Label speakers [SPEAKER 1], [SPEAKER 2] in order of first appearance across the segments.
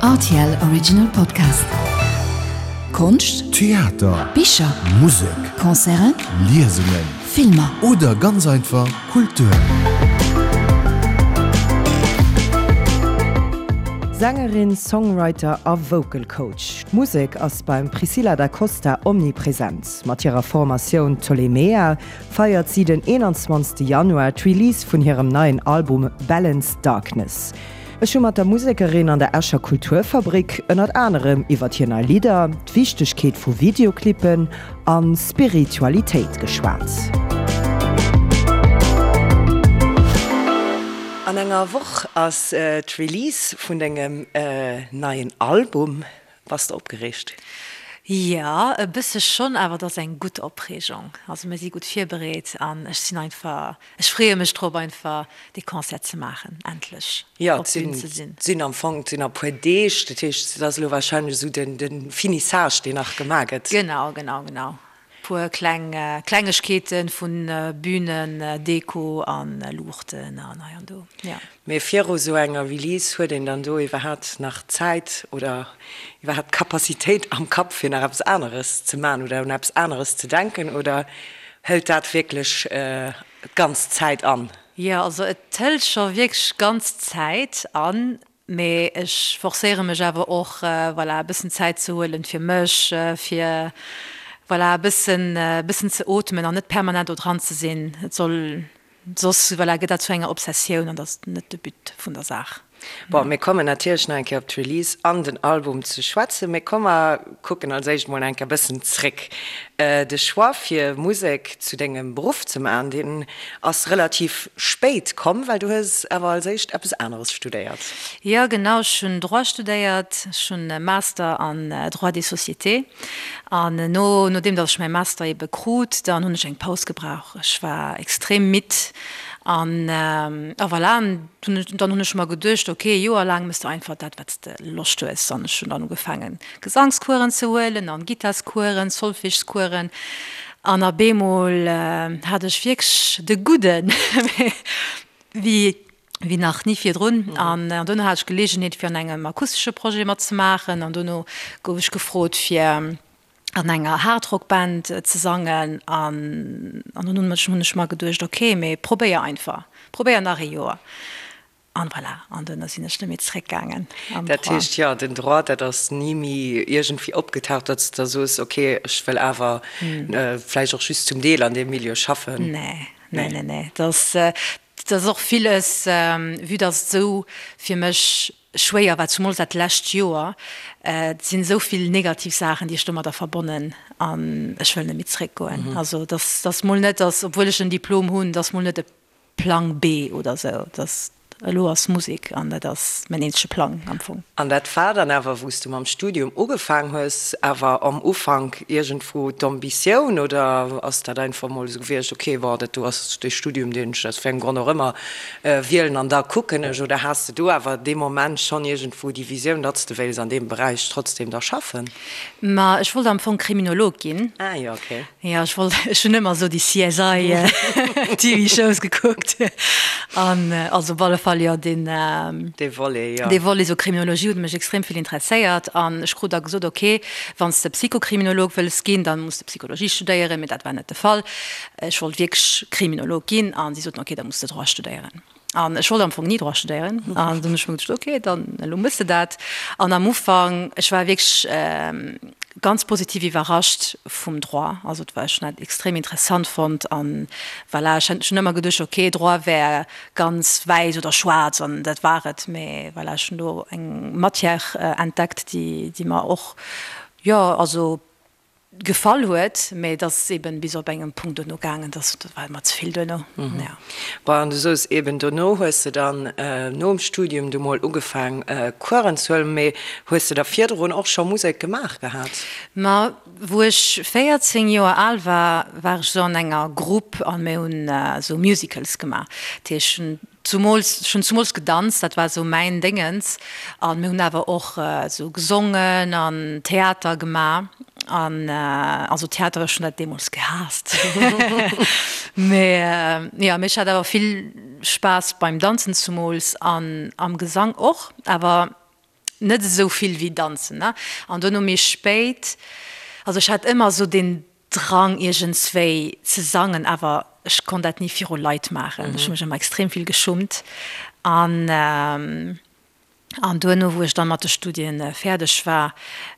[SPEAKER 1] Rtl Original Podcast. Konscht,
[SPEAKER 2] Theater,
[SPEAKER 1] Bicher,
[SPEAKER 2] Musek,
[SPEAKER 1] Concerten,
[SPEAKER 2] Liesungen,
[SPEAKER 1] Filmer.
[SPEAKER 2] Oder ganz einfach Kultur.
[SPEAKER 3] Sängerin, Songwriter a Vocal Coach, d'Musek ass beim Priscilla da Costa omnipresent. Mat hirer Formatioun Ptolemea feiert si den 21. Januar d'Release vun hirem neien Album Balance Darkness. Ech hu mat der Musekerin an der Escher Kulturfabrik ënnert anerem iwwert hir nei Lidder, d'Wichtegkeet vu Videoclippen a Spiritualitéit geschwat. An enger Woch ass d'Release vun dengem neien Album. Bass de opgereegt?
[SPEAKER 4] Jo, e bësse schonn, awer et ass eng gutt Opreegung. Also mir si gutt virbereet an ech sinn einfach, ech freeë mech drop einfach dee Concert ze maachen, endlech op d'Bün ze sinn.
[SPEAKER 3] Jo, et sinn am Fong, et sinn a puer Deeg, dat heescht et ass elo warscheinlech esou den Finissage, deen nach gemaach gëtt.
[SPEAKER 4] Genau, genau, genau. Puer kleng Klengegkeeten vun Bühnen, Deko an Luuchten an hei an do, jo.
[SPEAKER 3] Mee viru sou enger Release huet een dann do iwwerhaapt nach Zäit oder iwwerhaapt d'Capacitéit am Kapp fir nach eppes aneres ze man oder un eppes aneres ze denken oder hëlt dat wierklech d'ganz Zäit an?
[SPEAKER 4] Jo, also et hëlt scho wierklech ganz Zäit an. Mee ech forcéiere mech awer och, voilà, e bëssen Zäit ze huelen fir mech, fir, voilà, e bëssen, e bëssen ze ootmen an net permanent do dran ze sinn. Et soll, soss, voilà, gëtt dat zu enger Obsessioun an dat ass net de But vun der Saach.
[SPEAKER 3] Bon, mir kommen natierlech nach eng Kéier op d'Release an den Album ze schwätzen, mee komm mer kucken als éischt mol eng Kéier e bëssen zréck. De Choix fir Musek zu dengem Beruff ze maachen, deen ass relativ spéit komm, well du hues awer als éischt eppes aneres studéiert.
[SPEAKER 4] Jo genau, ech hunn Droit studéiert, ech hunn e Master an Droit des sociétés an no nodeem datt ech mäi Master ebe krut, dann hunn ech eng Paus gebrauch. Ech war extrem midd an a voilà, an dann hunn ech mer geduecht, ok, e Joer laang mëss de einfach dat wat s de Loscht hues an ech hunn dann ugefaangen Gesangskueren ze huelen an Gittaskueren, Solfegeskueren an a beemol hat ech wierklech de Gudden wéi wéi nach ni virdrun an dono hat ech Geleegenheet fir an engem akustesche Projet matzemaachen an dono gouf ech gefrot fir an enger Hardrock-Band ze sangen an an dunn hunn ech mer geduecht, ok mee probéier einfach, probéier nach ee Joer. An voilà, an duerno sinn ech net méi zeréckgaangen
[SPEAKER 3] am Droit. Dat heescht, jo, den Droit, dat ass ni méi iergendwéi opgetaucht, datt s de da soos, ok, ech wëll awer vläicht och just zum Deel an deem Milieu schaffen?
[SPEAKER 4] Nee, nee, nee, nee. Dat ass, dat ass och villes, vue datt et esou fir mech schwéier war, zumools dat lescht Joer, et sinn esou vill negativ Saachen, déi ech domadder verbonnen an ech wëll net méi zeréckgoen. Also, dat ass mol net, datt, obwuel ech en Diplom hunn, dat ass mol net e Plang B oder sou, dass elo ass Musek an dat ass mäin eenzege Plang am Fong.
[SPEAKER 3] An dat war dann awer, wou s du mam Studium ugefaang hues, awer am Ufank iergendwou d'Ambitioun oder ass dat einfach mol esou gewiescht, ok, bon, dat do ass dee Studium, deen ech aus wéi engem Grond och ëmmer wielen an da kucken ech, oder has de do awer dee Moment schonn iergendwou déi Visioun, datt s de wéils an deem Beräich trotzdem da schaffen?
[SPEAKER 4] Ma ech wollt am Fong Kriminolog ginn.
[SPEAKER 3] Ah jo, ok.
[SPEAKER 4] Jo, ech wollt, ech hunn ëmmer esou déi CSI TV Shows gekuckt an also op alle Fall jo deen
[SPEAKER 3] Dee Volet, jo.
[SPEAKER 4] Dee Volet, esou Kriminologie huet mech extrem vill interesséiert an ech krut da gesot, ok, wann s de Psychokriminolog wëlls ginn, dann muss de Psychologie studéieren, mee dat war net de Fall. Ech wollt wierklech Kriminolog ginn an si soten, ok, da muss de Droit studéieren. An ech wollt am Fong ni Droit studéieren. An dunn hunn ech mer geduecht, ok, dann elo mëss de dat. An am Ufank, ech war wierklech ganz positiv iwwerrascht vum Droit. Also et war, ech hunn dat extrem interessant fonnt. An voilà, ech hunn ëmmer geduecht, ok, Droit wär ganz wäiss oder schwaarz an dat war et. Mee voilà, ech hunn do eng Matière entdeckt, déi, déi mer och, jo, also Gefall huet, mä et ass eben bis op engem Punkt duerno gaangen, dass dat war mer ze vill duerno, jo.
[SPEAKER 3] Bon, an du soos eben, dono hues de dann nom Studium du mol ugefaang Coursen ze huelen, mee hues de da virdrun och scho Musek gemaach gehat?
[SPEAKER 4] Ma wou ech 14 Joer al war, war ech sou an enger Grupp an mir hunn sou Musicals gemaach. Dat heescht, ech hunn Zumools, ech hunn zumools gedanzt, dat war esou mäin Déngens. An mir hunn awer och esou gesongen an Theater gemaach. An also Theater, ech hunn dat deemools gehaasst. Mee jo, mee ech hat awer vill Spaass beim Danzen zumools an am Gesang och. Awer. Net esou vill wéi danzen, ne? An duerno méi spéit, also ech hat ëmmer esou den Drang iergendswéi ze sangen, awer ech konnt dat ni viru Leit maachen. Ech hu mech ëmmer extrem vill geschummt. An an duerno wou ech dann mat de Studien fäerdeg war,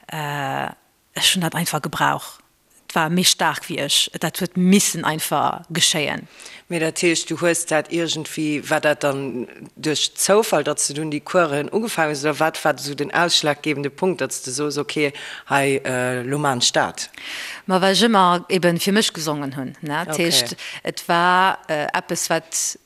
[SPEAKER 4] ech hunn dat einfach gebrauch. Et war méi staark wéi ech. Dat huet missen einfach geschéien.
[SPEAKER 3] Mee dat heescht, du hues dat iergendwéi, war dat dann duerch Zoufall, datt s de dunn déi Coursen ugefaangen hues, oder wat war esou den ausschlaggebende Punkt, datt s de soos, ok, hei, elo maan ech dat?
[SPEAKER 4] Ma well ech ëmmer eben fir mech gesongen hunn. Dat heescht, et war eppes, wat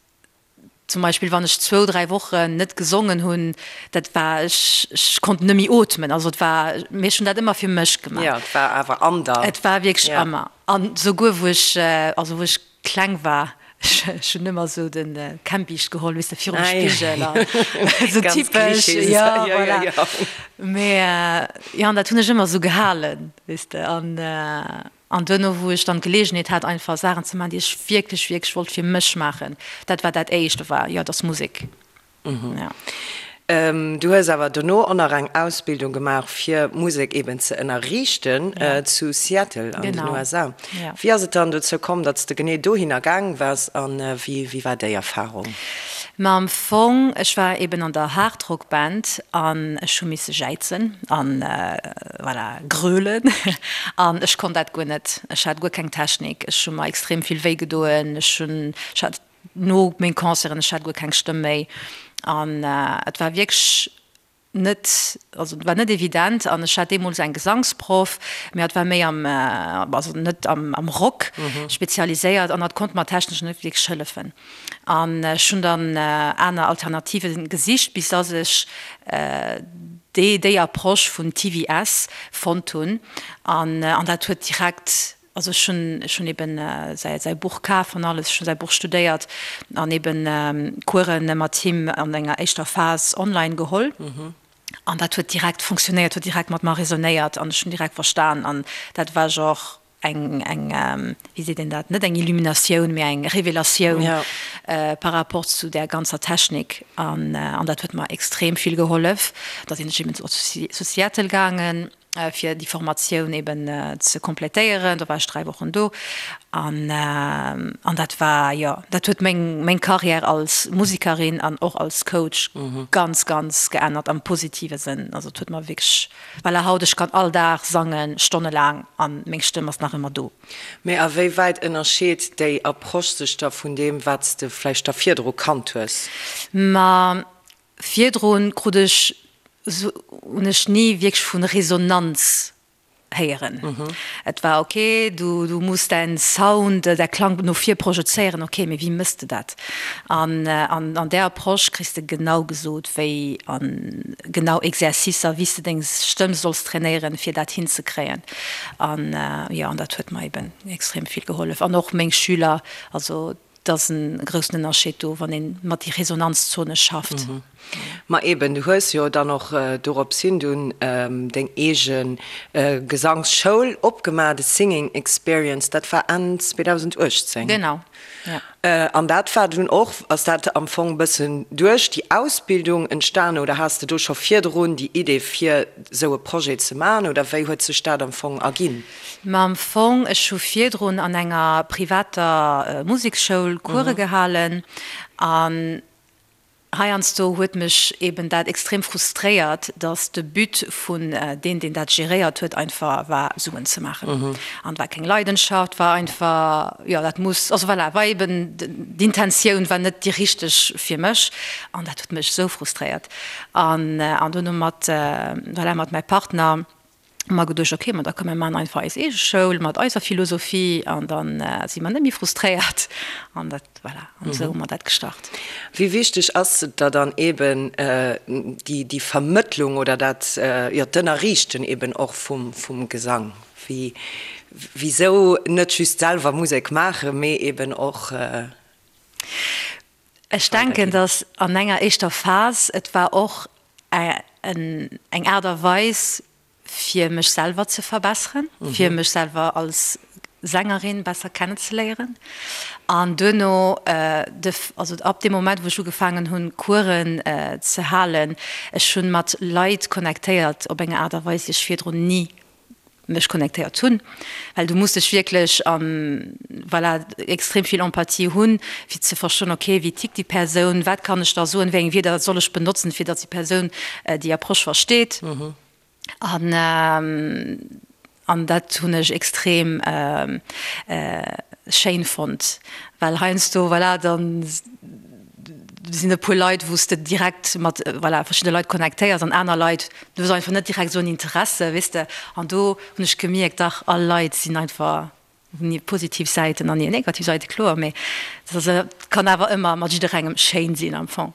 [SPEAKER 4] Zum Beispill wann ech zwou, dräi Wochen net gesongen hunn, dat war, ech, ech konnt net méi ootmen. Also et war, mee ech hunn dat ëmmer fir mech gemaach.
[SPEAKER 3] Jo, et war awer an der.
[SPEAKER 4] Et war wierklech ja. ëmmer. An souguer wou ech, also wou ech kleng war, ech, ech hunn ëmmer esou de Kämmbiischt geholl, weess de, virum ah, Spigel an esou typesch. Ja, ja, voilà. Ja, ja. Mee jo, an dat hunn ech ëmmer esou gehalen, weess de, an. An duerno, wou ech dann d'Geleegenheet hat, einfach Saachen ze maachen, déi ech wierklech, wierklech wollt fir mech maachen, dat war dat Éischt, do war, jo, et ass Musek.
[SPEAKER 3] Jo. Du hues awer dono och nach eng Ausbildung gemaach, fir Musek eben ze ënnerriichten, zu Seattle an den USA. Wéi ass et dann dozou komm, datt s de genee dohinner gaang waars a wéi war déi Erfarung?
[SPEAKER 4] Ma am Fong, ech war eben an der Hardrock-Band an ech hu misse jäizen an voilà, grölen an ech konnt dat guer net. Ech hat guer keng Technik, ech hu mer extrem vill wéi gedoen, ech hunn, ech hat no meng Concerten, ech hat guer keng Stëmm méi an et war wierklech net, also et war net evident an ech hat deemools eng Gesangsproff, mee hatt war méi am, also net am am Rock spezialiséiert an hatt konnt mer technesch net wierklech hëllefen. An ech hunn dann aner Alternative gesicht, bis dass ech déi déi Approche vun TVS fonnt hunn an an dat huet direkt, also ech hunn ech hunn eben säi säi Buch kaf an alles, ech hunn säi Buch studéiert an eben Coursen mat him an enger éischter Phas online geholl an dat huet direkt funktionéiert, huet direkt mat mer resonéiert an ech hunn direkt verstan an dat war genre eng, eng, wéi seet een dat, net eng Illuminatioun, mee eng Revelatioun par rapport zu där ganzer Technik. An, an dat huet mer extrem vill gehollef. Da sinn ech eben zu Seattle gaangen, fir déi Formatioun eben ze kompletéieren. Do war ech 3 Wochen do. An, an dat war, jo, dat huet meng, meng Carrière als Musikerin an och als Coach ganz, ganz geännert am positive Sënn. Also et huet mer wierklech Voilà, haut, ech kann all Dag sangen, stonnelaang, an meng Stëmm ass nach ëmmer do.
[SPEAKER 3] Mee a wéi wäit ënnerscheet déi Approche sech da vun deem, wat s de vläicht da virdru kannt hues?
[SPEAKER 4] Ma virdrun krut ech, hunn ech ni wierklech vu Resonanz héieren. Et war ok, du, du muss däin Sound, däi Klang no vir projezéieren, ok, mee wéi mëss de dat? An an där Approche kriss de genau gesot, wéi an genau Exercicer, wéi s de deng Stëmm solls trainéieren, fir dat hinzekréien. An jo, an dat huet mer eben extrem vill gehollef. An och meng Schüler, also et ass en groussen Ënnerscheed do, wann een mat déi Resonanzzone schafft.
[SPEAKER 3] Ma eben, du hues jo dann och dorops hin dunn deng eege Gesangsschoul opgemaach, de Singing Experience, dat war Enn 2018.
[SPEAKER 4] Genau,
[SPEAKER 3] jo. An dat war dunn och, ass dat am Fong e bëssen duerch déi Ausbildung entstanen oder has de do scho virdrun déi Idee fir esou e Projet ze maachen oder wéi huet sech dat am Fong erginn?
[SPEAKER 4] Ma am Fong, ech hu virdrun an enger privater Museksschoul Course gehalen an Heiansdo huet mech eben dat extrem frustréiert, dass de But vun deen, deen dat geréiert huet, einfach war Suen ze maachen. An et war keng Leidenschaft, war einfach, jo dat muss, also voilà, war eben d'Intentioun war net déi richteg fir mech an dat huet mech esou frustréiert. An dunn hu mat, voilà, mat mäi Partner, hu mer geduecht, ok, ma da komm mir maachen einfach eis eege Schoul mat eiser Philosophie an da si mer net méi frustréiert an dat, voilà, an esou hu mer dat gestart.
[SPEAKER 3] Wéi wichteg ass et der dann eben déi, déi Vermëttlung oder dat, jo, d'Ënnerriichten eben och vum, vum Gesang? Wéi, wisou net just selwer Musek maachen, mee eben och.
[SPEAKER 4] Ech denken, datt an enger éischter Phas, et war och eng Aart a Weis fir mech selwer ze verbesseren, fir mech selwer als. Sängerin besser kennenzeléieren an duerno de, also ab deem Moment wou ech ugefaangen hunn Coursen ze halen, ech hunn mat Leit connectéiert op eng Aart a Weis déi ech virdrun ni mech connectéiert hunn, well du muss dech wierklech an, voilà, extrem vill Empathie hunn fir ze verstoen, ok wéi tickt déi Persoun, wat kann ech da soen, wéi eng Wierder soll ech benotzen fir datt déi Persoun déi Approche versteet. An an dat hunn ech extrem schéin fonnt, well heiansdo, voilà, da sinn e puer Leit, wou s de direkt mat, voilà, verschidde Leit connectéiers an aner Leit, du hues einfach net direkt esou en Interesse, weess de. An do hunn ech gemierkt, dach, all Leit sinn einfach Hunn hir positiv Säiten an hir negativ Säite, kloer, mee et kann awer ëmmer mat jidderengem schéin sinn am Fong.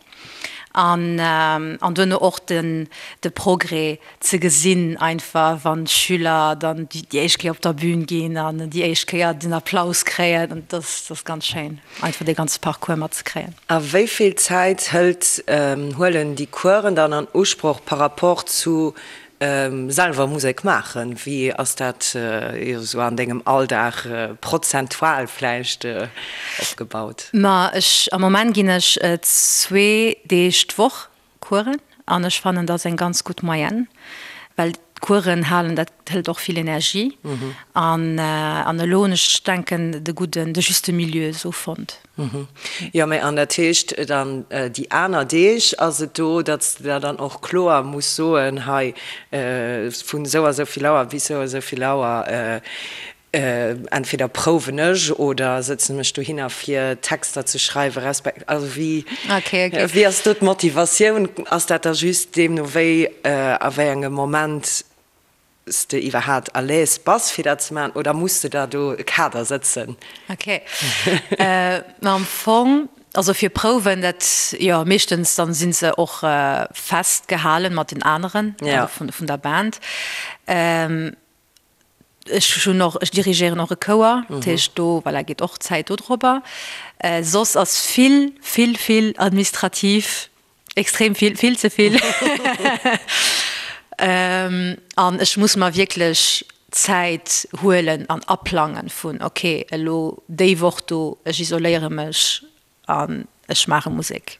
[SPEAKER 4] An an duerno och den de Progrès ze gesinn einfach, wann d'Schüler dann déi éischt Kéier op der Bühn ginn an déi éischt Kéier den Applaus kréien, an dat ass ganz schéin einfach dee ganze Parcours matzekréien.
[SPEAKER 3] A wéi vill Zäit hëlt, huelen déi Coursen dann an Usproch par rapport zu Selwer Musek maachen, wéi ass dat esou an dengem Alldag prozentual vläicht opgebaut?
[SPEAKER 4] Ma ech, am Moment ginn ech zwee Deeg d'Woch Coursen an ech fannen dat ass eng ganz gutt Moyenne, well d'Coursen halen, dat hëlt och vill Energie an an elo hunn ech, denken, de gudden, de juste milieu esou fonnt.
[SPEAKER 3] Jo, mä an dat heescht dann déi aner Deeg ass et do, datt s de der dann och kloer muss soen, hei vun esou a sou vill Auer bis esou a sou vill Auer entweder prouwen ech oder sëtzen mech dohinner fir Texter ze schreiwen resp. Also wéi wéi ass do d'Motivatioun? Ass dat da just deemno wéi a wéi engem Moment s de iwwerhaat à l'aise bass fir dat ze maachen oder muss de der do e Kader sëtzen?
[SPEAKER 4] Ok, ma am Fong, also fir Prouwen, dat jo meeschtens dann sinn se och festgehalen mat den aneren, also vun der Band. Ech hunn och, ech dirigéieren och e Chouer, dat heescht do, voilà, geet och Zäit dodropper. Soss ass vill, vill, vill administrativ Extrem vill, vill ze vill. An ech muss mer wierklech Zäit huelen an aplangen vun, ok, elo déi Woch do, ech isoléiere mech an ech maache Musek.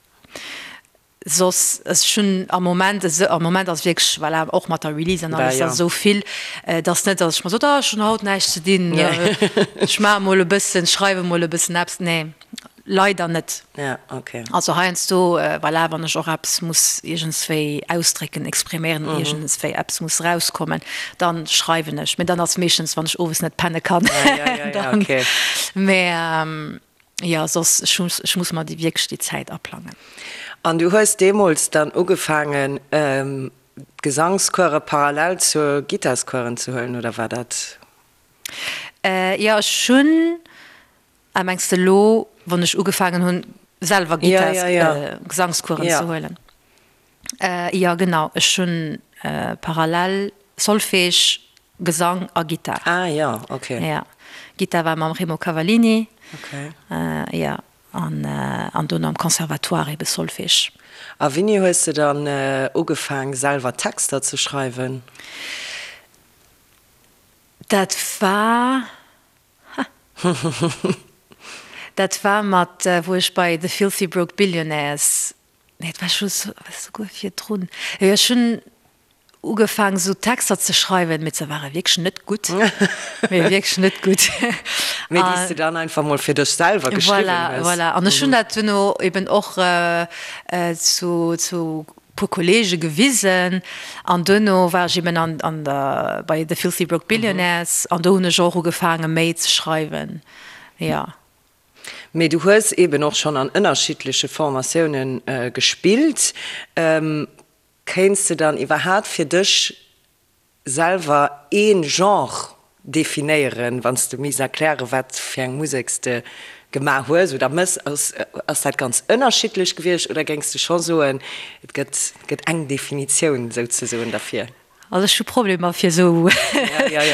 [SPEAKER 4] Soss, ech hunn am Moment, am Moment ass wierklech, voilà, och mat der Release an alles, ass esou vill, et ass net, datt ech mer sot, ah ech hunn haut näischt ze dinn, ech maache mol e bëssen, schreiwe mol e bëssen eppes. Nee. Leider net.
[SPEAKER 3] Ja, okay.
[SPEAKER 4] Also heiansdo, voilà, wann ech och eppes muss iergendswéi ausdrécken, expriméieren, mm -hmm. iergendswéi eppes muss rauskommen, dann schreiwen ech. Mee dann ass meeschtens, wann ech owes net penne kann.
[SPEAKER 3] Ja, ja, ja, ja, okay.
[SPEAKER 4] Mee ähm, ja, soss, ech muss, ech muss mer déi wierklech déi Zäit aplangen.
[SPEAKER 3] An du hues deemools dann ugefaangen, ähm, d'Gesangscourse parallel zur Gittarscoursen ze huelen, oder war dat?
[SPEAKER 4] Äh, jo, ech hunn. Ah, mengs de elo, wann ech ugefaangen hunn, selwer Gittars, Gesangscoursen ze huelen? Jo, genau. Ech hunn parallel Solfège, Gesang a Gittar.
[SPEAKER 3] Ah jo, ok.
[SPEAKER 4] Jo, Gittar war mam Remo Cavallini.
[SPEAKER 3] Ok.
[SPEAKER 4] Jo, an an dono am Conservatoire ebe Solfège.
[SPEAKER 3] A wéini hues de dann ugefaang, selwer Texter ze schreiwen?
[SPEAKER 4] Dat war. Dat war mat wou ech bei The Filthy Broke Billionaires, nee et war scho souguer virdrun, jo ech hunn ugefaang sou Texter ze schreiwen, mee se ware wierklech net gutt, mee wierklech net gutt.
[SPEAKER 3] Mee déi s de dann einfach mol fir dech selwer geschriwwen
[SPEAKER 4] hues. Voilà, voilà. An ech hunn dat duerno eben och zu zu puer Kollege gewisen an duerno war ech eben an an der bei The Filthy Broke Billionaires an do hunn ech och ugefaange méi ze schreiwen, jo.
[SPEAKER 3] Mee du hues eben och schonn an ënnerschiddleche Formatioune gespillt. Kéints de dann iwwerhaat fir dech Selwer een Genre definéieren, wann s de misst erklären, wat fir eng Musek s de gemaach hues oder mëss? Ass dat ganz ënnerschiddlech gewiescht oder géings de scho soen, et gëtt gëtt eng Definitioun souzesoen derfir?
[SPEAKER 4] Also ech hu Problemer fir esou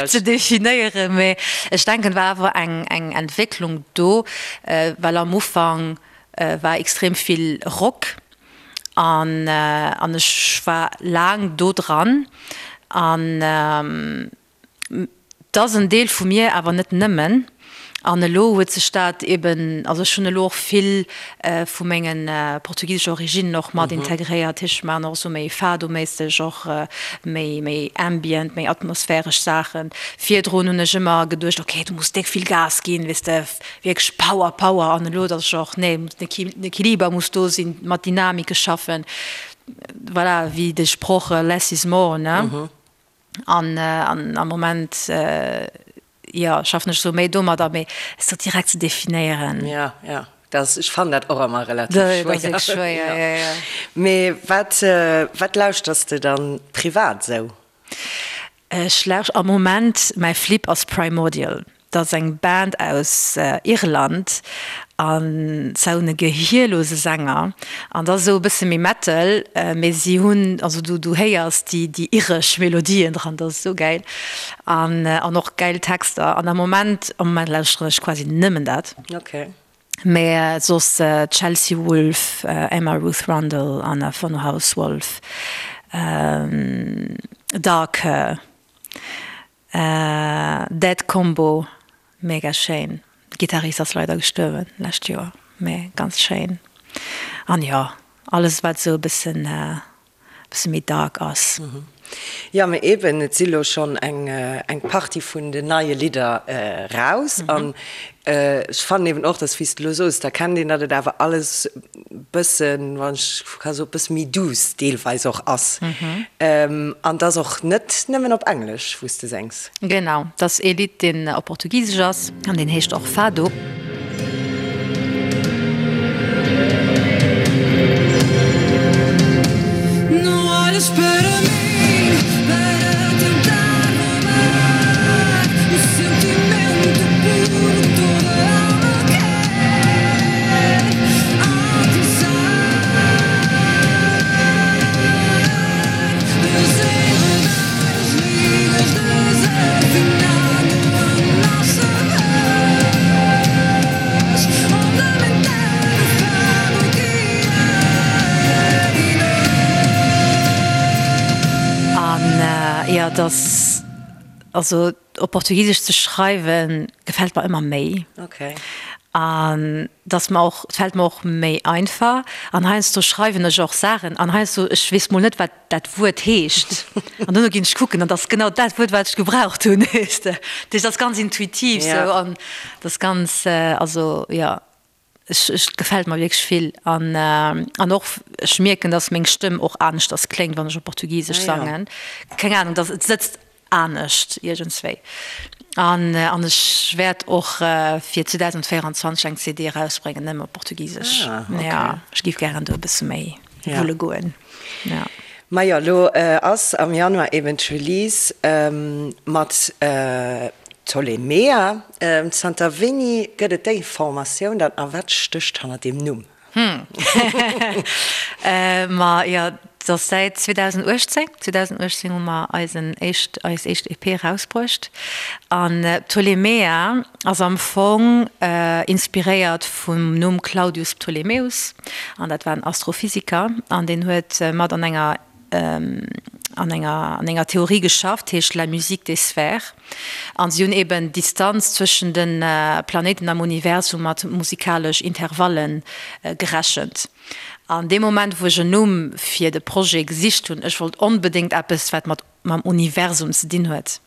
[SPEAKER 4] ze definéieren, mee ech denken et war awer eng eng Entwécklung do, well am Ufank war extrem vill Rock An an ech war laang do dran. An Et ass en Deel vu mir, awer net nëmmen. An elo huet sech dat eben, also ech hunn elo och vill vu mengen portugisesche Originnen och mat integréiert. Ech maachen och esou méi Fado-méisseg, och méi, méi ambient, méi atmosphäresch Saachen. Virdrun hunn ech ëmmer geduecht, ok, du muss déck vill Gas ginn, weess de, wierklech Power, Power. An elo, datt ech och, nee, den Equiliber muss do sinn, mat Dynamike schaffen. Voilà, wéi de Sproch less is more, ne? An am Moment, jo, schaffen ech esou méi domadder, mee et sou direkt ze definéieren.
[SPEAKER 3] Jo, jo, dat, ech fannen dat och ëmmer relativ schwéier.
[SPEAKER 4] Dat ass wierklech schwéier, jo, jo.
[SPEAKER 3] Mee wat, wat lauschters de dann privat esou?
[SPEAKER 4] Ech lauscht am Moment, mäi Flip ass Primordial. Dat ass eng Band aus Irland an se hunn e gehierlose Sänger an dat ass esou e bësse méi Metal, mee si hunn, also du du héiers déi déi iresch Melodien dran, dat ass esou gäil an an och gäil Texter an am Moment am Moment lauschteren ech quasi nëmmen dat.
[SPEAKER 3] Okay.
[SPEAKER 4] Mee soss Chelsea Wolfe, Emma Ruth Rundle, Anna von Hausswolff, Dark Her. Dead Combo, mega schéin. Gitarrist ass leider gestuerwen lescht Joer, mee ganz schéin. An jo, alles wat esou e bëssen bësse méi dark ass.
[SPEAKER 3] Jo, mee eben, et si lo schonn eng eng Partie vun den neie Lidder raus an Ech fannen eben och, dass, wéi s de elo soos, da kennt een, datt et awer alles bëssen, wann ech ka soen, bësse méi duuss deelweis och ass. An 't ass och net nëmmen op Englesch, wou s de séngs.
[SPEAKER 4] Genau, 't ass ee Lidd, deen op Portugisesch ass an deen heescht och Fado. An jo, et ass, also op Portugisesch ze schreiwen gefält mer ëmmer méi.
[SPEAKER 3] Okay.
[SPEAKER 4] An et ass mer och, et fält mer och méi einfach. An heiansdo schreiwen ech och Saachen an heiansdo, ech weess mol net wat dat Wuert heescht an duerno ginn ech kucken an et ass genau dat Wuert wat ech gebraucht hunn, weess de. Dat heescht, et ass ganz intuitiv sou an et ass ganz, also jo. Ech, et gefält mer wierklech vill an an och ech mierken, dass meng Stëmm och aneschters kléngt, wann ech op Portugisesch sangen. Keng Ahnung, dass et sëtzt anescht iergendswéi. An an ech wäert och fir 2024 eng CD erausbréngen, nëmme op Portugisesch. Jo, ech géif gären do e bësse méi wulle goen.
[SPEAKER 3] Jo. Majo, elo ass am Januar eben d'Release mat Ptolemea. Zanter wéini gëtt et déi Formatioun dann a wat stécht hanner deem Numm?
[SPEAKER 4] Ma jo, et ass säit 2018. 2018 hu mer eisen éischt, eis éischt EP erausbruecht. An Ptolemea ass am Fong inspiréiert vum Numm Claudius Ptolemäus. An dat war en Astrophysiker an deen huet mat an enger an enger an enger Theorie geschafft, heescht La musique des sphères. An si hunn eben d'Distanz zwëschen de Planéiten am Universum mat musikalesch Intervallen gerechent. An dee Moment wou ech en Numm fir de Projet gesicht hunn, ech wollt onbedéngt eppes wat mat mam Universum ze dinn huet,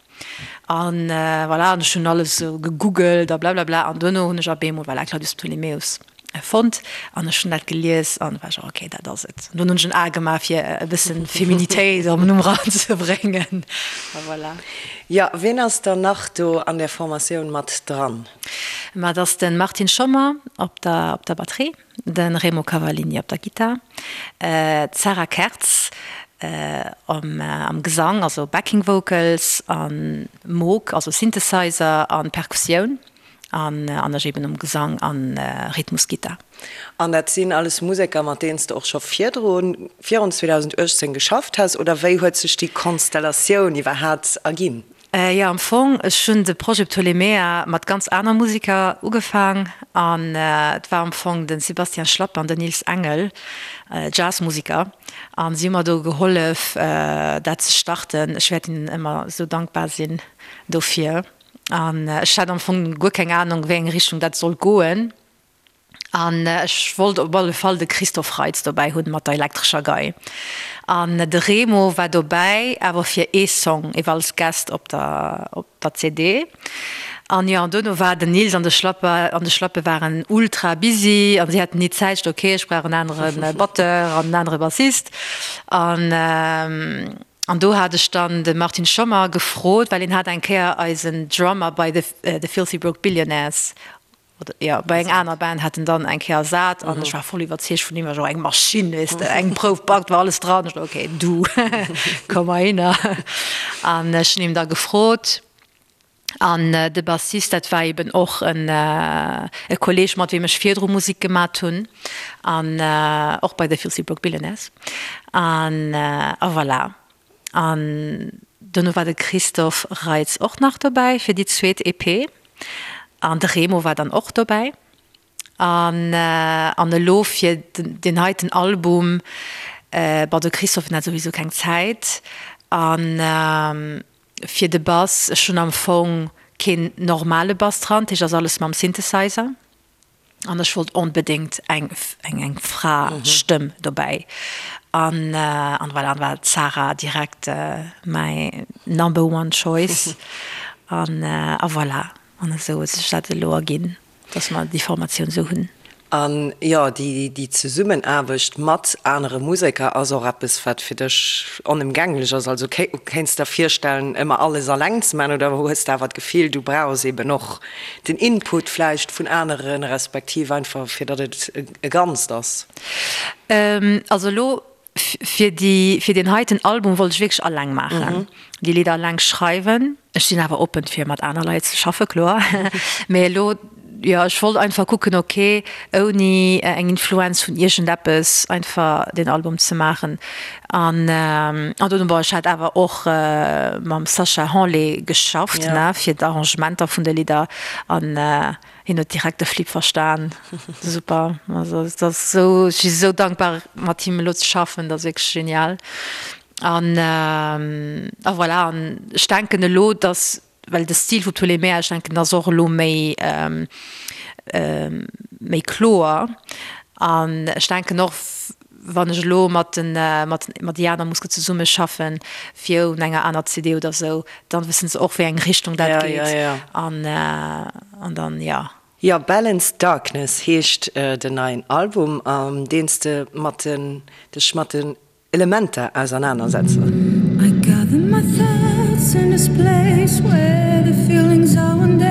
[SPEAKER 4] An voilà, an ech hunn alles esou gegoogelt a blablabla an duerno hunn ech op eemol, voilà, Claudius Ptolemäus fonnt an ech hunn dat gelies an war ech, ok, dat ass et. An dunn hunn ech en A gemaach fir e bëssen Feminitéit am Numm eranzebréngen a voilà.
[SPEAKER 3] Jo, wien ass dann nach do an där Formatioun mat dran?
[SPEAKER 4] Ma et ass de Martin Schommer op der op der Batterie. De Remo Cavallini op der Gittar, d'Sarah Kertz am Gesang, also Backing Vocals, a Moog, also Synthesizer a Perkussioun, an ech eben um Gesang a Rhythmusgittar.
[SPEAKER 3] An dat sinn alles Museker, mat deenen s de och scho virdrun, virun 2018 geschafft has, oder wéi huet sech déi Konstellatioun iwwerhaapt erginn?
[SPEAKER 4] Jo, am Fong, ech hunn de Projet Ptolemea mat ganz aner Musiker ugefaang an et war am Fong de Sébastien Schlapp an den Nils Engel, Jazzmusiker, an si hu mer do gehollef dat ze starten. Ech wäert hinnen ëmmer esou dankbar sinn dofir. An ech hat am Fong guer keng Anung, wéi eng Richtung dat sollt goen. An ech wollt op alle Fall de Christophe Reitz dobäi hunn mat der elektrescher Gei. An de Remo war dobäi, awer fir ee Song, ewell als Guest op der, op der CD. An jo, an dono war den Nils an de Schlapper, an de Schlappe waren ultra busy an si haten ni Zäit. Ech sot, ok, ech brauch en anere Batteur an en anere Bassist. An, an do hat ech dann de Martin Schommer gefrot, well hien hat eng Kéier eisen Drummer bei The, The Filthy Broke Billionaires Oder jo, bei eng aner Band hat en dann eng Kéier ersat an ech war voll iwwerzeegt vun him, war jo eng Maschinn, weess de, eng Prouf backt, war alles dran. Ech sot, okay, du, komm heihinner. An ech hunn him da gefrot an de Bassist, dat war eben och en e Kolleeg, mat weem ech virdru Musek gemat hunn an och bei The Filthy Broke Billionaires an a voilà. An dono war de Christophe Reitz och nach dobäi fir déi zweet EP. An de Remo war dann och dobäi. An an elo fir deen heiten Album, bon de Christophe hat souwisou keng Zäit. An fir de Bass, ech hunn am Fong keen normale Bass dran, dat heescht ass alles mam Synthesizer. An ech wollt onbedéngt eng eng eng Fra-Stëmm dobäi. An an voilà, an war d'Sarah direkt mäi number one choice. An a voilà, an esou huet sech dat elo erginn, dass mer déi Formatioun esou hunn.
[SPEAKER 3] An jo, déi déi Zesummenaarbecht mat anere Museker ass och eppes, wat fir dech onëmgänglech ass. Also kéints der virstellen, ëmmer alles alleng ze maachen oder hues de awer d'Gefill, du brauchs eben och Den Input vläicht vun aneren, respektiv einfach fir datt et e Ganzt ass.
[SPEAKER 4] Also elo fir déi, fir deen heiten Album wollt ech wierklech alleng maachen, déi Lidder alleng schreiwen. Ech sinn awer oppen fir mat aner Leit ze schaffen, kloer. Mee elo, jo, ech wollt einfach kucken, ok, ouni eng Influenz vun iergendeppes einfach deen Album ze maachen. An an dunn, bon, ech hat awer och mam Sacha Hanlé geschafft, ne, fir d'Arrangementer vun de Lidder. An hien huet direkt de Flip verstan. Super. Also et ass esou, ech si esou dankbar mat him elo ze schaffen, dat ass wierklech genial. An a voilà, an ech denken elo, datt Well de Stil vu Ptolemea, ech denken, ass och elo méi, méi kloer. An ech denken och, wann ech elo mat den, mat, mat déi aner Muske zesummeschaffen, fir un enger aner CD oder esou, dann wëssen se och, wéi eng Richtung dat geet. An, an dann, jo.
[SPEAKER 3] Jo, Balanced Darkness heescht den neien Album, an deen s de mat den, dech mat den Elementer ausernanersetzen. I gather my thoughts in this place where the feelings are undead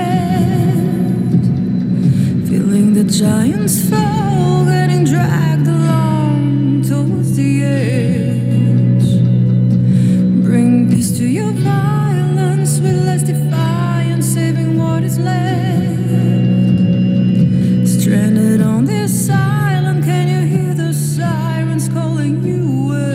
[SPEAKER 3] Feeling the giants fall, getting dragged along towards the edge Bring peace to your violence with less defiance, saving what is left Stranded on this island, can you hear the sirens calling you away?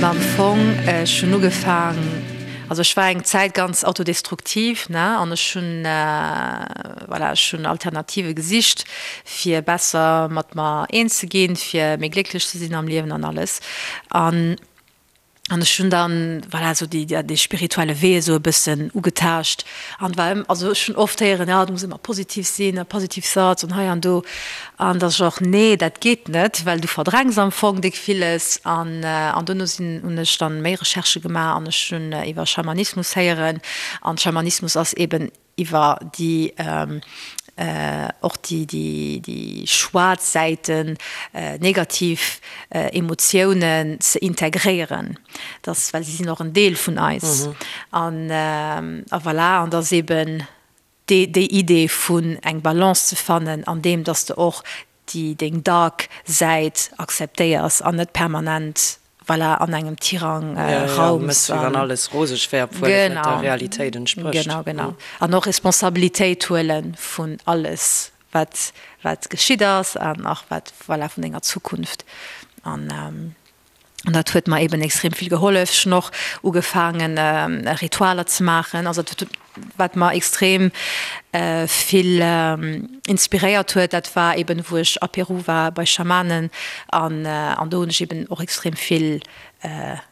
[SPEAKER 4] Ma am Fong, ech hunn ugefaang, also ech war eng Zäit ganz autodestruktiv, ne, an ech hunn, voilà, ech hunn Alternative gesicht, fir besser mat mer eens ze ginn, fir méi glécklech ze sinn am Liewen an alles. An An ech hunn dann, voilà, esou déi, dee spirituelle Wee esou e bëssen ugetaascht an war ëm, also ech hunn oft héieren, jo, du muss ëmmer positiv sinn a positive thoughts an hei an do. An da sot ech och, nee, dat geet net, well du verdrängs am Fong déck villes. An, an dono sinn, hunn ech dann méi Recherchë gemaach an ech hunn iwwer Schamanismus héieren. An Schamanismus ass eben iwwer déi och déi déi schwaarz Säiten, negativ Emotiounen ze integréieren, dass, well si sinn och en Deel vun eis. An a voilà, an dass eben déi déi Idee vun eng Balance ze fannen an deem, dass de och déi deng dark Säit akzeptéiers an net permanent voilà an engem Tirang raums.
[SPEAKER 3] Wéi wann alles roseg wär, obwuel et net der Realitéit entsprécht.
[SPEAKER 4] Genau, genau. An och Responsabilitéit huele vun alles. wat wat geschitt ass an och wat voilà vun denger Zukunft an an dat huet mer eben extrem vill gehollef. Ech hunn och ugefaangen Ritualer ze maachen, also dat wat mer extrem vill inspiréiert huet, dat war eben wou ech a Peru war bei Schamanen an an do hunn ech eben och extrem vill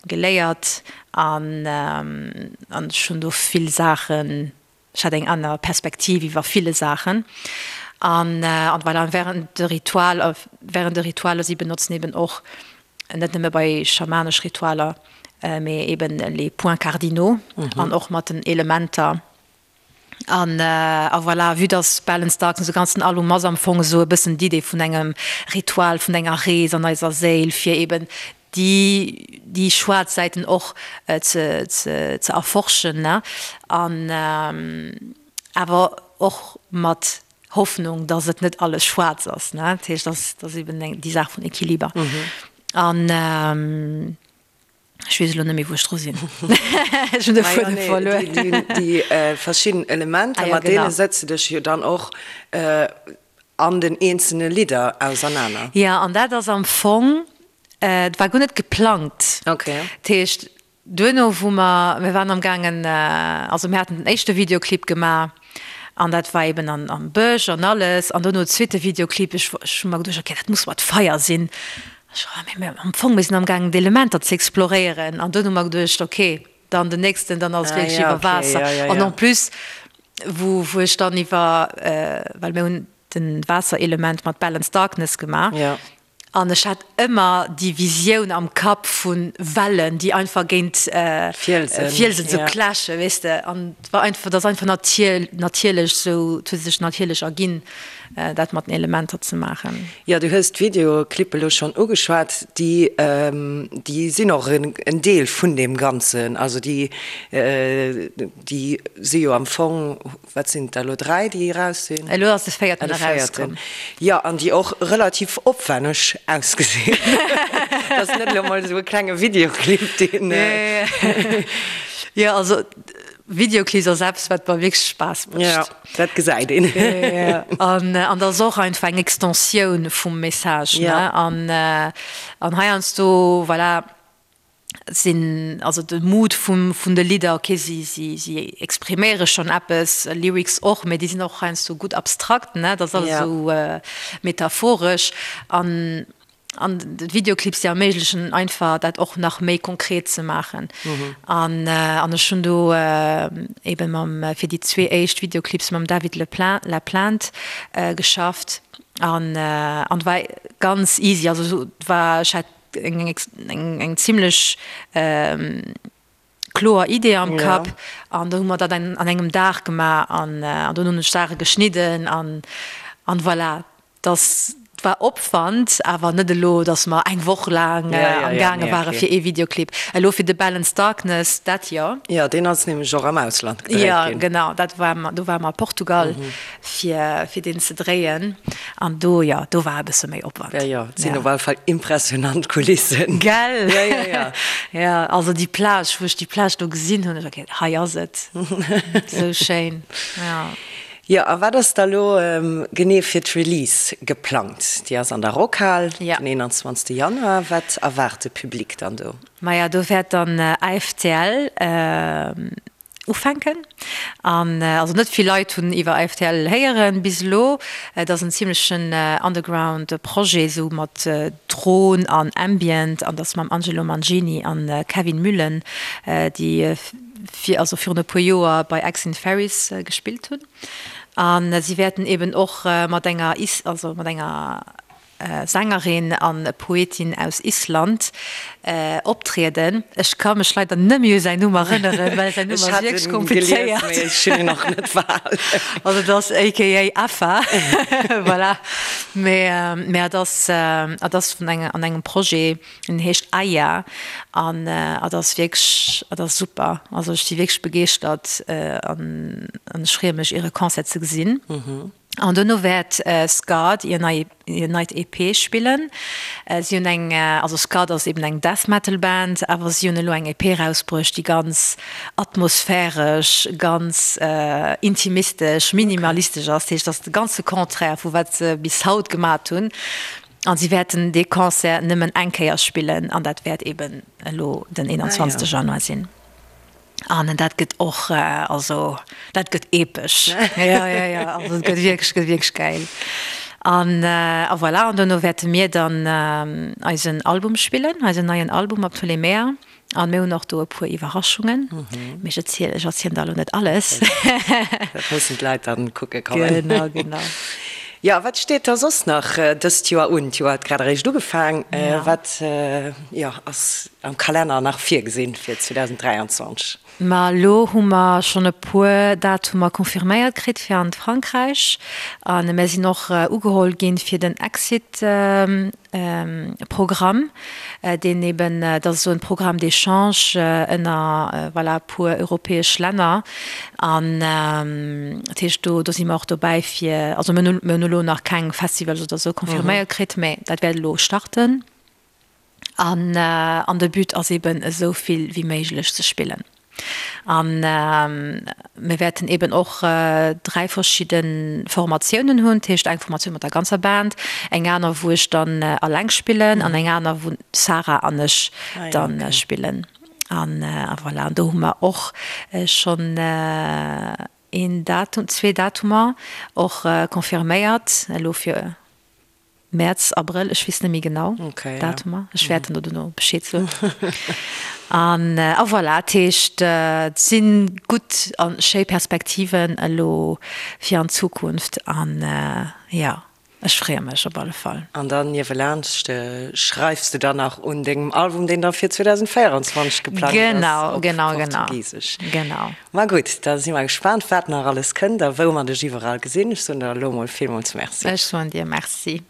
[SPEAKER 4] geléiert an an ech hunn do vill Saachen Ech hat eng aner Perspektiv iwwer ville Saachen. An an voilà, an während de Ritual, während de Ritualer, si benotzen eben och, net nëmme bei schamanesch Ritualer, mee eben les points cardinaux an och mat den Elementer. An a voilà, vue dass Balanced Darkness, de ganzen Album ass am Fong esou e bëssen d'Idee vun engem Ritual, vun enger Rees an eiser Séil, fir eben déi déi schwaarz Säiten och ze ze erforschen, ne, an awer och mat Hoffnung, dass et net alles schwaarz ass, ne. Dat heescht, dass dass eben eng déi Saach vun Equiliber. An ech weess elo net méi, wou ech dru sinn. Ech hunn de Fuedem verluer.
[SPEAKER 3] Déi verschidden Elementer, mat deene setze dech jo dann och an den eenzelne Lidder ausernaner.
[SPEAKER 4] Jo, an dat ass am Fong, et war guer net geplangt.
[SPEAKER 3] Okay.
[SPEAKER 4] Dat heescht, duerno wou mer, mir waren am gaangen, also mir haten den éischte Videoclip gemaach an dat war eben an am Bësch an alles an duerno zweete Videoclip, ech ech hu mer geduecht, okay, dat muss mat Feier sinn. Ech, mee am Fong, mir sinn am gaangen d'Elementer ze exploréieren an dunn hu mer geduecht, okay, dann den nächsten, dann ass et wierklech iwwer Waasser. An en plus, wou wou ech dann iwwer, well mir hunn den Waasserelement mat Balance Darkness gemaach an ech hat ëmmer déi Visioun am Kapp vu Wellen, déi einfach géint Fielsen esou clashen, weess de. An et war einfach, et ass einfach natierlech esou, et huet sech natierlech erginn. dat mat den Elementer ze maachen.
[SPEAKER 3] Jo, du hues d'Videoclippe elo schonn ugeschwat. Déi, déi sinn och en Deel vun deem Ganzen. Also déi, déi si jo am Fong, wat sinn et der elo, 3, déi eraus sinn?
[SPEAKER 4] Elo ass de véierten erauskomm.
[SPEAKER 3] Jo, an déi och relativ opwänneg ausgesinn. Dat ass net elo mol esou e klenge Videoclip, deen.
[SPEAKER 4] Jo, also Videoclips ass eppes, wat mer wierklech Spaass mécht.
[SPEAKER 3] Jo, dat gesäit een.
[SPEAKER 4] An an dat ass och einfach eng Extensioun vum Message, ne? An an heiansdo, voilà, sinn also de Mood vum vun de Lidder, okay, si si si expriméiere schonn eppes, Lyrics och, mee déi sinn och heiansdo gutt abstrakt, ne? Dat ass alles esou metaphoresch. An An d'Videoclips déi erméiglechen einfach dat och nach méi konkret ze maachen. An an ech hunn do eben mam fir déi zwee éischt Videoclips mam David Le Laplante geschafft an an war ganz easy. Also war ech hat eng eng eng zimlech kloer Idee am Kapp an do hu mer dat an engem Dag gemaach an an dunn hunn ech Saache geschnidden an an voilà. Dass war Opwand, awer net elo, dass mer eng Woch laang am gaange ware fir ee Videoclip. Elo fir de Balance Darkness, dat jo.
[SPEAKER 3] Jo, deen ass nämlech och am Ausland gedréit ginn.
[SPEAKER 4] Jo, genau, dat war, do ware mer a Portugal fir fir deen ze dréien an do, jo, do war e bësse méi Opwand.
[SPEAKER 3] Jo, jo, et sinn op alle Fall impressionant Kulissen.
[SPEAKER 4] Gell?
[SPEAKER 3] Jo, jo, jo.
[SPEAKER 4] Jo, also déi Plage, wou ech déi Plage do gesinn hunn, ech war, okay, hei ass et, esou schéin, jo.
[SPEAKER 3] Jo, a wat ass da lo genee fir d'Release geplangt? Déi ass an der Rockhal den 21 Januar. Wat erwaart de Public dann do?
[SPEAKER 4] Maja, do wäert dann AFTL ufänken. An also net vill Leit hunn iwwer AFTL héieren bis elo. Et ass en zimlechen Underground Projet, esou mat Dron an Ambient, an dat mam Angelo Mangini an Kevin Muhlen, déi fir also virun e puer Joer bei Exin Ferries gespillt hunn. An si wäerten eben och mat enger also mat enger Sängerin an Poetin aus Island optrieden. Ech ka mech leider net méi u säin Numm erënneren, well säin Numm ass wierklech komplizéiert.
[SPEAKER 3] Ech hunn en och net behalen.
[SPEAKER 4] Also et ass aka Effa, voilà. Mee mee et ass et ass vun engem an engem Projet, en heescht Aya an et ass wierklech et ass super. Also ech si wierklech begeeschtert an an ech freeë mech iere Concert ze gesinn. An dono wäert Scarred hir nei hir neit EP spillen. Si hunn eng, also Scarred ass eben eng Death Metal Band, awer si hunn elo eng EP erausbruecht, déi ganz atmosphäresch, ganz intimistesch, minimalistesch ass. Dat heescht, dat ass de ganze Contraire vu wat se bis haut gemat hunn. An si wäerten dee Concert nëmmen eng Kéier spillen an dat wäert eben elo den 21 Januar sinn. An dat gëtt och, also dat gëtt epesch. Jo, jo, jo, also et gëtt wierklech, gëtt wierklech gäil. An a voilà, an dono wäerte mir dann eisen Album spillen, eisen neien Album op Ptolemea. An mir hunn och do e puer Iwwerraschungen, mee ech erzielen, ech erzielen der elo net alles.
[SPEAKER 3] Dat mussen d'Leit dann kucke kommen.
[SPEAKER 4] Genau, genau.
[SPEAKER 3] Jo, wat steet da soss nach dëst Joer un? D'Joer huet grad eréischt ugefaang. Wat, jo, ass am Kalenner nach virgesinn fir 2023?
[SPEAKER 4] Ma elo hu mer schonn e puer Datumer confirméiert kritt fir an d'Frankräich. A mir sinn och ugeholl ginn fir den Exit Programm, deen eben, dat ass esou en Programme d'échange ënner, voilà, e puer europäesch Länner. An dat heescht, do, do si mer och dobäi fir, also mir hunn, mir hunn elo nach keng Festivals oder esou confirméiert kritt, mä dat wäert elo starten. An, an de But ass eben esou vill wéi méiglech ze spillen. An mir wäerten eben och 3 verschidde Formatiounen hunn, dat heescht eng Formatioun mat der ganzer Band, eng aner wou ech dann alleng spillen an eng aner wou d'Sarah an ech dann spillen. An voilà, an do hu mer och schonn een Datum, zwee Datumer och confirméiert elo fir Mäerz, Abrëll, ech weess net méi genau d'Datumer. Ech wäert dann dono Bescheed soen. An a voilà, dat heescht, et si gutt a schéi Perspektiven elo fir an d'Zukunft an jo, ech freeë mech op alle Fall.
[SPEAKER 3] An dann niewelaanscht schreifs de dann nach un dengem Album, deen da fir 2024 geplangt ass, op Portugisesch.
[SPEAKER 4] Genau, genau.
[SPEAKER 3] Ma gutt, da si mer gespaant, wat nach alles kënnt a wou mer dech iwwerall gesinn. Ech soen der elo mol villmools Merci.
[SPEAKER 4] Ech soen dir Merci.